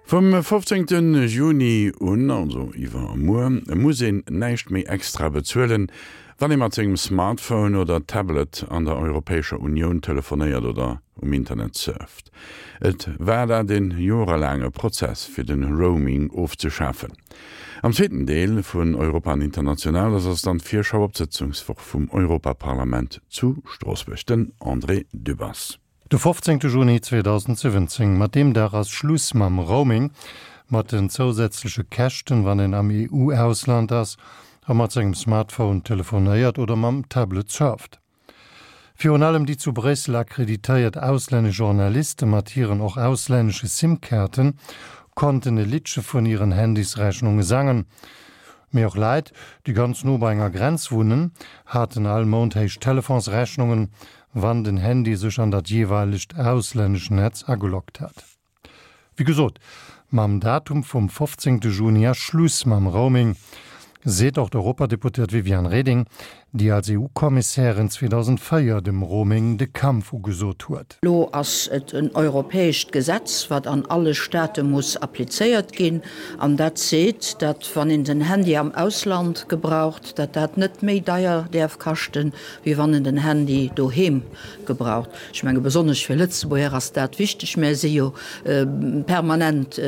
Vum 15 Juni un, also iwwermuer, muss een näischt méi extra bezuelen, wann ee mat sengem Smartphone oder Tablet an der Europäescher Unioun telefonéiert oder um Internet surft. Et war dat e jorelaange Prozess fir de Roaming ofzeschafen. Am zweeten Deel vun Europa an International ass ass dann d'Virschau op d'Sëtzungswoch vum Europaparlament zu Stroossbuerg. Den André Dübbers. De 15 Juni 2017, mat deem Dag ass Schluss mam Roaming, mat den zousätzleche Käschten, wann een am EU-Ausland ass a mat sengem Smartphone telefonéiert oder mam Tablet surft. Virun allem déi zu Bréissel akkreditéiert auslännesch Journaliste mat hiren och auslännesche SIM-Kaarten konnten e Liddche vun hiren Handysrechnunge sangen. Mee och Leit, déi ganz no bei enger Grenz wunnen, haten all Mount héich Telefonsrechnungen, wann den Handy sech an dat jeeweilegt auslännesch Netz ageloggt hat. Wéi gesot, mam Datum vum 15 Juni ass Schluss mam Roaming, seet och d'Europadeputéiert Viviane Reding, déi als EU-Kommissärin 2004 dem Roaming de Kampf ugesot huet. Elo ass et en europäescht Gesetz, wat an alle Staate muss applizéiert ginn, an dat seet, datt wann een den Handy am Ausland gebraucht, datt dat net méi deier däerf kaschten, wéi wann en den Handy doheem gebraucht. Ech menge besonnesch fir Lëtzebuerger ass dat wichteg. Mär si jo permanent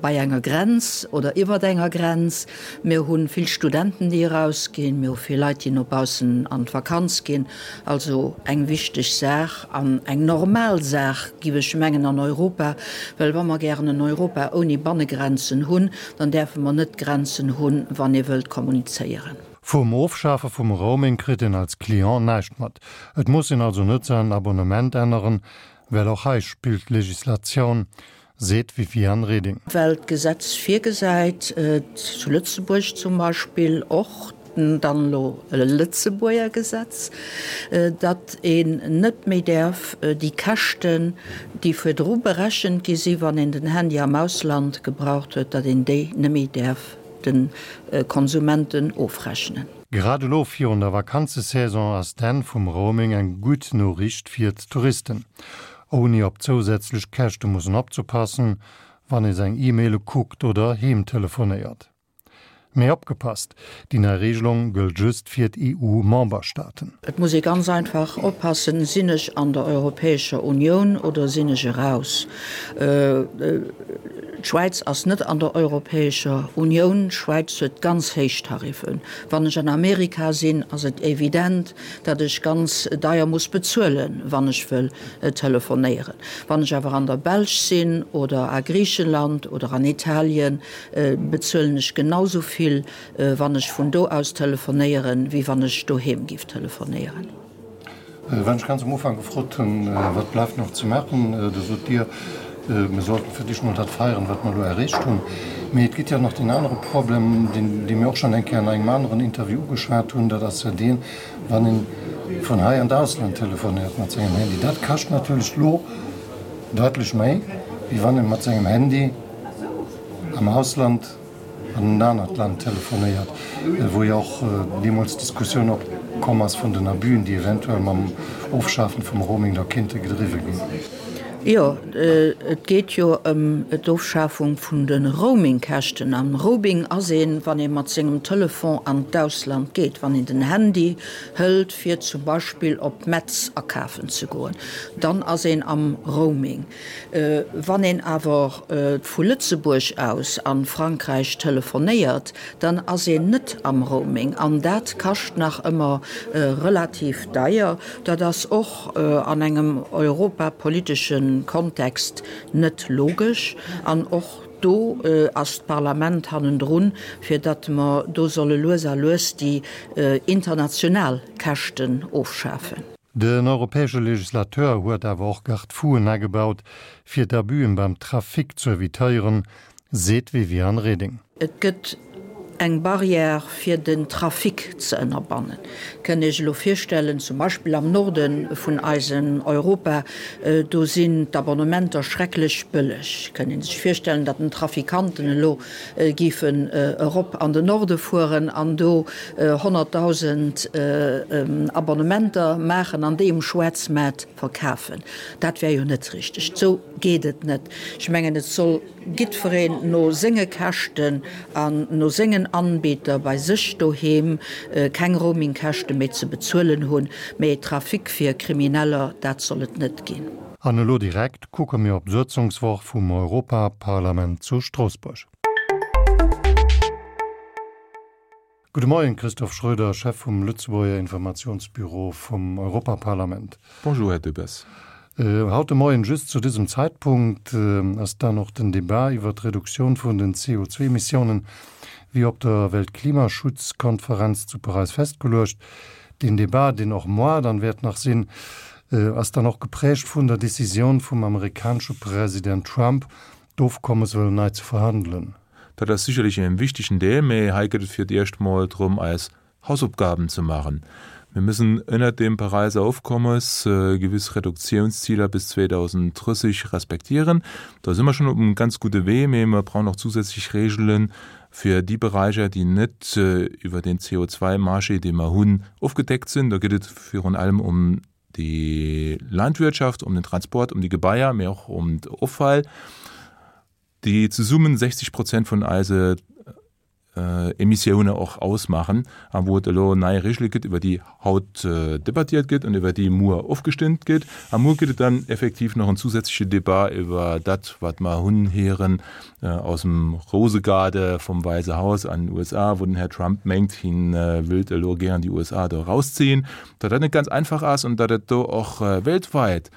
bei enger Grenz oder iwwert enger Grenz. Mir hu vill Studenten, déi erausginn. Mir hu vill Leit, déi no baussen an d'Vakanz ginn. Also eng wichteg Saach an eng normal Saach, giff ech mengen, an Europa. Well wa mer gären en Europa ouni Bannegrenzen hunn, dann däerfe mer net Grenzen hunn, wann ee wëllt kommunizéieren. Vum Ofschafe vum Roaming kritt een als Client näischt mat. Et muss een also net säin Abonnement änneren, well och hei spillt d'Legislatioun, seet d'Viviane Reding. Well d'Gesetz virgesäit, zu Lëtzebuerg zum Beispill och, dann elo e Lëtzebuerger Gesetz, datt een net méi däerf déi Käschten, déi virdru berechent gi si wann een den Handy am Ausland gebraucht huet, datt een déi net méi däerf de Konsumenten ofrechnen. Grad elo virun der Vakanzesaison ass d'Enn vum Roaming eng gutt Noriicht fir d'Touristen. Ouni op zousätzlech Käschte mussen opzepassen, wann ee seng E-Maile kuckt oder heem telefonéiert. Mee opgepasst, déi nei Reegelung gëllt just fir d'EU-Memberstaaten. Et muss ee ganz einfach oppassen, Sinn ech an der Europäescher Unioun oder sinn ech eraus? D'Schwäiz ass net an der Europäescher Unioun. D'Schwäiz huet ganz héich Tariffen. Wann ech an Amerika sinn, ass et evident, datt ech ganz deier muss bezuelen, wann ech wëll telefonéieren. Wann ech awer an der Belsch sinn oder a Griichenland oder an Italien, bezuelen ech genau sou vill, wann ech vun do aus telefonéieren, wéi wann ech doheem giff telefonéieren. Wann ech ganz am Ufank gefrot hunn, wat bleift nach ze maachen, da sot Dir, mir sollten fir d'éischt mol dat feieren, wat mer elo erreecht hunn. Mee et gëtt jo nach deen anere Problem, deen, dee mir och schonn eng Kéier an engem aneren Interview ugeschwat hunn, dat ass jo deen, wann ee vun hei an d'Ausland telefonéiert mat sengem Handy. Dat kascht natierlech elo daitlech méi, wéi wann ee mat sengem Handy am Ausland an en anert Land telefonéiert, wou jo och deemools d'Diskussioun opkomm ass vun den Abüen, déi eventuell mam Ofschafen vum Roaming da kéinte gedriwwe ginn. Jo, et geet jo ëm d'Ofschafung vun de Roamingkäschten. Am Roaming ass een, wann ee mat sengem Telefon an d'Ausland geet, wann een den Handy hëlt, fir zum Beispill op Metz akafen ze goen, dann ass een am Roaming. Wann een awer vu Lëtzebuerg aus a Frankräich telefonéiert, dann ass een net am Roaming an dat kascht nach ëmmer relativ deier. Dat ass och an engem europapolitesche Kontext net logesch an och do ass d'Parlament hannendrun, fir datt mer do solle lues a lues déi international Käschten ofschafen. Den europäesche Legislateur huet awer och Garde-fouen agebaut, fir d'Abüen beim Trafic ze evitéieren, seet d'Viviane Reding. Et gëtt eng Barrière fir den Trafic ze ënnerbannen. Kënnt Iech elo virstellen, zum Beispill am Norde vun eisem Europa, do sinn d'Abonnementer schrecklech bëlleg. Kënnt ee sech virstellen, datt den Trafikanten elo géifen erop an den Norde fueren an do 100.000 Abonnementer maachen an déi um Schwaarzmaart verkafen. Dat wär jo net richteg. Sou. geet et net. Ech mengen, et soll giddfereen no senge Käschten an no sengen Anbieter bei sech doheem keng Roamingkäschte méi ze bezuelen hunn. Mee Trafic fir Krimineller, dat soll et net ginn. An elo direkt kucke mir op d'Sëtzungswoch vum Europaparlament zu Stroossbuerg. Gudde Moien, Christophe Schroeder, Chef vum Lëtzebuerger Informationsbüro vum Europaparlament. Bonjour, Här Debbes. Haut de Moien, just zu dësem Zäitpunkt, ass dann och den Debat iwwer d'Reduktioun vun den CO2-Emissiounen, wéi op der Weltklimaschutzkonferenz zu Paräis festgeluecht. Deen Debat, deen och moar dann wäert nach sinn, ass dann och geprägt vun der Decisioun vum amerikanesche President Trump, d'Ofkommes wëllen nei ze verhandelen. Dat ass sicherlech en wichtegen Deel, mee hei gëtt et fir d'éischt mol drëm eis Hausaufgaben ze maachen. Mir müssen ënnert dem Paräiser Ofkommes gewiss Reduktiounsziler bis 2030 respektieren. Do si mer schonn op engem ganz gudde Wee, mee mer brauchen och zusätzlech Regele fir déi Beräicher, déi net iwwer den CO2-Marché, dee mer hunn, ofgedeckt sinn. Do geet et virun allem ëm déi Landwirtschaft, ëm den Transport, ëm déi Gebaier, mee och ëm d'Offall, déi zesummen 60 Prozent vun eise Emissioune och ausmaachen a wou et elo nei Regele gëtt, iwwer déi haut debattiert gëtt an iwwer déi muer ofgestëmmt gëtt. A muer gëtt et dann effektiv nach en zusätzleche Debat iwwer dat, wat mer hunn héieren aus dem Rosegaarde vum Wäisse Haus an den USA, wou den Här Trump mengt, hien wëllt elo gären déi USA do erausziehen. Datt dat net ganz einfach ass an datt et do och weltweit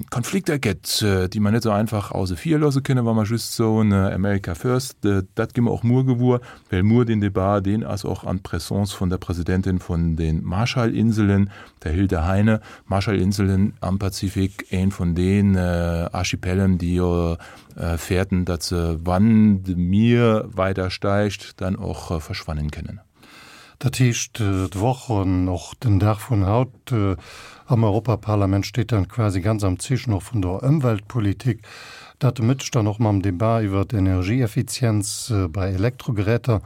Konflikter gëtt, déi mer net esou einfach ausse vir loosse kënnen, wa mer just soen America first. Dat gi mer och muer gewuer, well muer deen Debat, deen ass och an Présence vun der Presidentin vun de Marshallinselen, der Hilde Heine. Marshallinselen am Pazifik, een vun den Archipelen, déi jo fäerten, datt se, wann de Mier weider steigt, dann och verschwannen kënnen. Dat heescht, d'Woch an och den Dag vun haut am Europaparlament steet dann quasi ganz am Zeechen och vun der Ëmweltpolitik. Dat de Mëtteg dann och mam Debat iwwer d'Energieeffizienz bei Elektrogeräter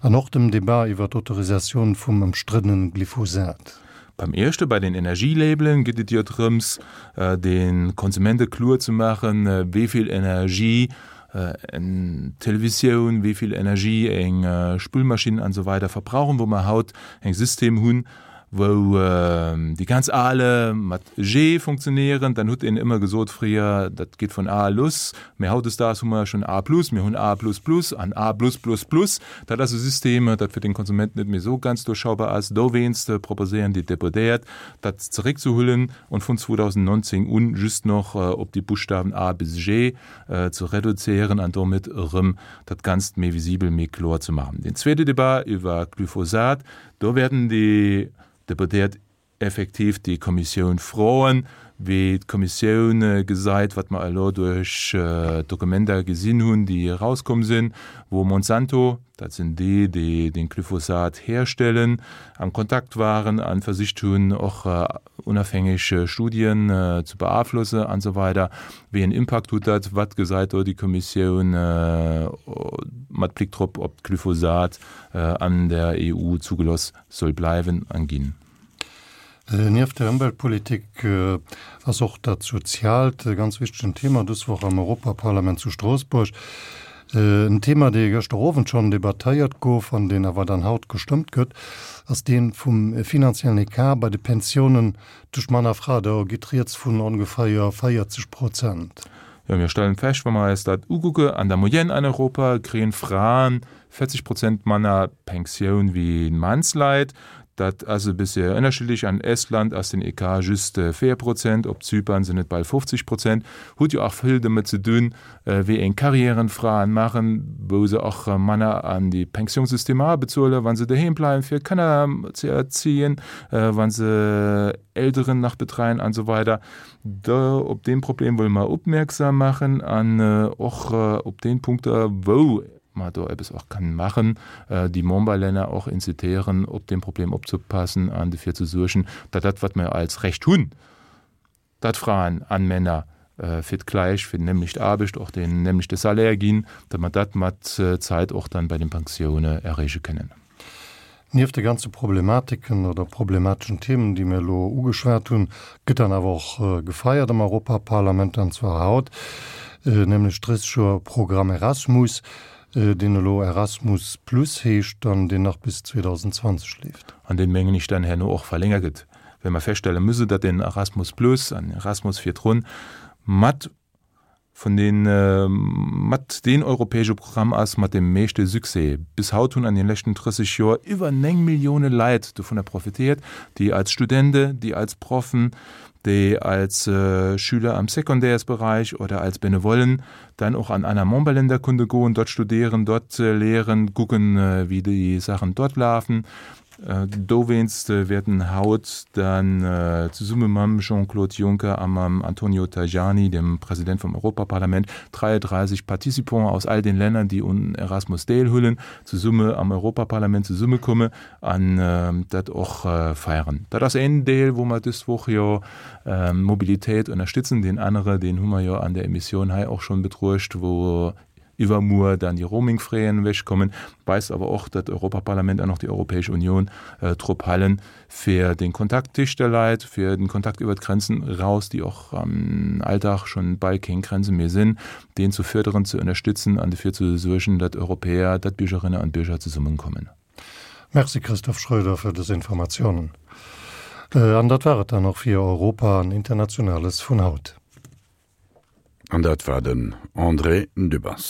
an och dem Debat iwwer d'Autorisatioun vum ëmstriddene Glyphosat. Beim éischte, bei den Energielabelen, geet et jo drëms, de Konsumente kloer ze maachen, wéi vill Energie eng Televisioun, wéi vill Energie eng Spülmaschinn an esou weider verbrauchen, wou mer haut eng System hunn, wou déi ganz ale mat G funktionéieren. Dann hutt een ëmmer gesot fréier, dat geet vun A luss, mä hautdesdaags hu mer schonn A plus, mir hunn A plus plus an A plus plus plus. Dat ass e System, dat fir den Konsument net méi esou ganz duerchschaubar ass. Dowéinst proposéieren déi Deputéiert, dat zeréckzehullen und vun 2019 un just noch op déi Buschtawen A bis G ze reduzéieren an domat erëm dat Ganzt méi visibel, méi kloer ze maachen. Deen zweete Debat iwwer Glyphosat, do wäerten déi Deputéiert effektiv déi Kommissioun froen, wéi d'Kommissioun gesait, wat mer elo duerch d'Dokumenter gesinn hunn, déi erauskomm sinn, wou Monsanto, dat sinn déi, déi den Glyphosat herstellen, am Kontakt waren a versicht hunn, och unafhängeg Studien ze beaflosse an esou weider. Wéi en Impakt hutt dat? Wat gesäit do déi Kommissioun mat Blick drop, ob d'Glyphosat an der EU zugeloss soll bleiwen an ginn? Nieft der Ëmweltpolitik ass och dat Soziaalt e ganz wichtegen Thema dës Woch am Europaparlament zu Stroossbuerg. En Thema, dee gëschter Owend schonn debattéiert gouf an deen awer dann haut gestëmmt gëtt, ass dee vum finanziellen Ecart bei de Pensiounen tëscht Mann a Fra. Do geet rieds vun ongeféier 40 Prozent. Jo, mir stellen fest, wa mer eis dat ukucke, an der Moyenne an Europa kréien Fraen 40 Prozent manner Pensioun wéi Mannsleit. Dat ass e bëssche ënnerschiddlech. An Estland ass den Ecart just 4 Prozent, op Zypern sinn et bal 50 Prozent. Huet jo och vill domat ze dun, wéi eng Carrièren d'Fraen maachen, wou se och manner an déi Pensiounssystemer abezuelen, wa se doheem bleiwen, fir Kanner ze erziehen, wa se Elteren nach betreien an esou weider. Do op dee Problem wëlle mer opmierksam maachen an och op déi Punkter, wou mer do eppes och kënnen maachen, déi Memberlänner och incitéieren, op deem Problem opzepassen an dofir ze suergen, datt dat, wat mer als Recht hunn, datt Fraen an Männer fir d'gläich, fir déi nämlecht Aarbecht och deen nämlechte Salaire ginn, datt mer dat mat Zäit och dann bei den Pensioune erreeche kënnen. Nieft de ganze Problematiken oder problemateschen Themen, déi mir elo ugeschwat hunn, gëtt dann awer och gefeiert am Europaparlament, an zwar haut, nämlech 30 Joer Programm Erasmus, deen elo Erasmus Plus heescht an deen nach bis 2020 leeft. An deen, mengen ech, dann herno och verlängert gëtt, well mer feststelle müsse, datt den Erasmus Plus an Erasmus virdrun mat vun den mat deen europäesche Programm ass mat dem meeschte Succès. Bis haut hunn an den leschten 30 Joer iwwer 9 Millioune Leit dovunner profitéiert, déi als Studente, déi als Proffen, déi als Schüler am Secondaires-Bereich oder als Benevollen dann och an aner Memberländer konnte goen, dort studieren, dort lehren, kucken, wéi déi Saachen dort lafen. Dowéinst wäerten haut dann zesumme mam Jean-Claude Juncker a mam Antonio Tajani, dem President vum Europaparlament, 33 Participants aus all den Länner, déi un Erasmus deelhuelen, zesumme am Europaparlament zesummekomme an dat och feieren. Dat ass een Deel, wou mer dës Woch jo Mobilitéit ënnerstützen. Deen anere, deen hu mer jo an der Emissioun hei och schonn betruecht, wou iwwermuer dann déi Roamingfraien ewechkommen, weist awer och, datt d'Europaparlament an och déi Europäesch Union drop halen, fir den Kontakt téscht de Leit, fir den Kontakt iwwer d'Grenzen eraus, déi och am Alldag schonn bal keng Grenze méi sinn, deen ze förderen, ze ënnerstützen an dofir ze suergen, datt Europäer, datt Biergerinne an Bierger zesummenkommen. Merci Christophe Schröder fir dës Informatiounen. An dat war et dann och fir Europa an Internationales vun haut. An dat war den André Dübbers.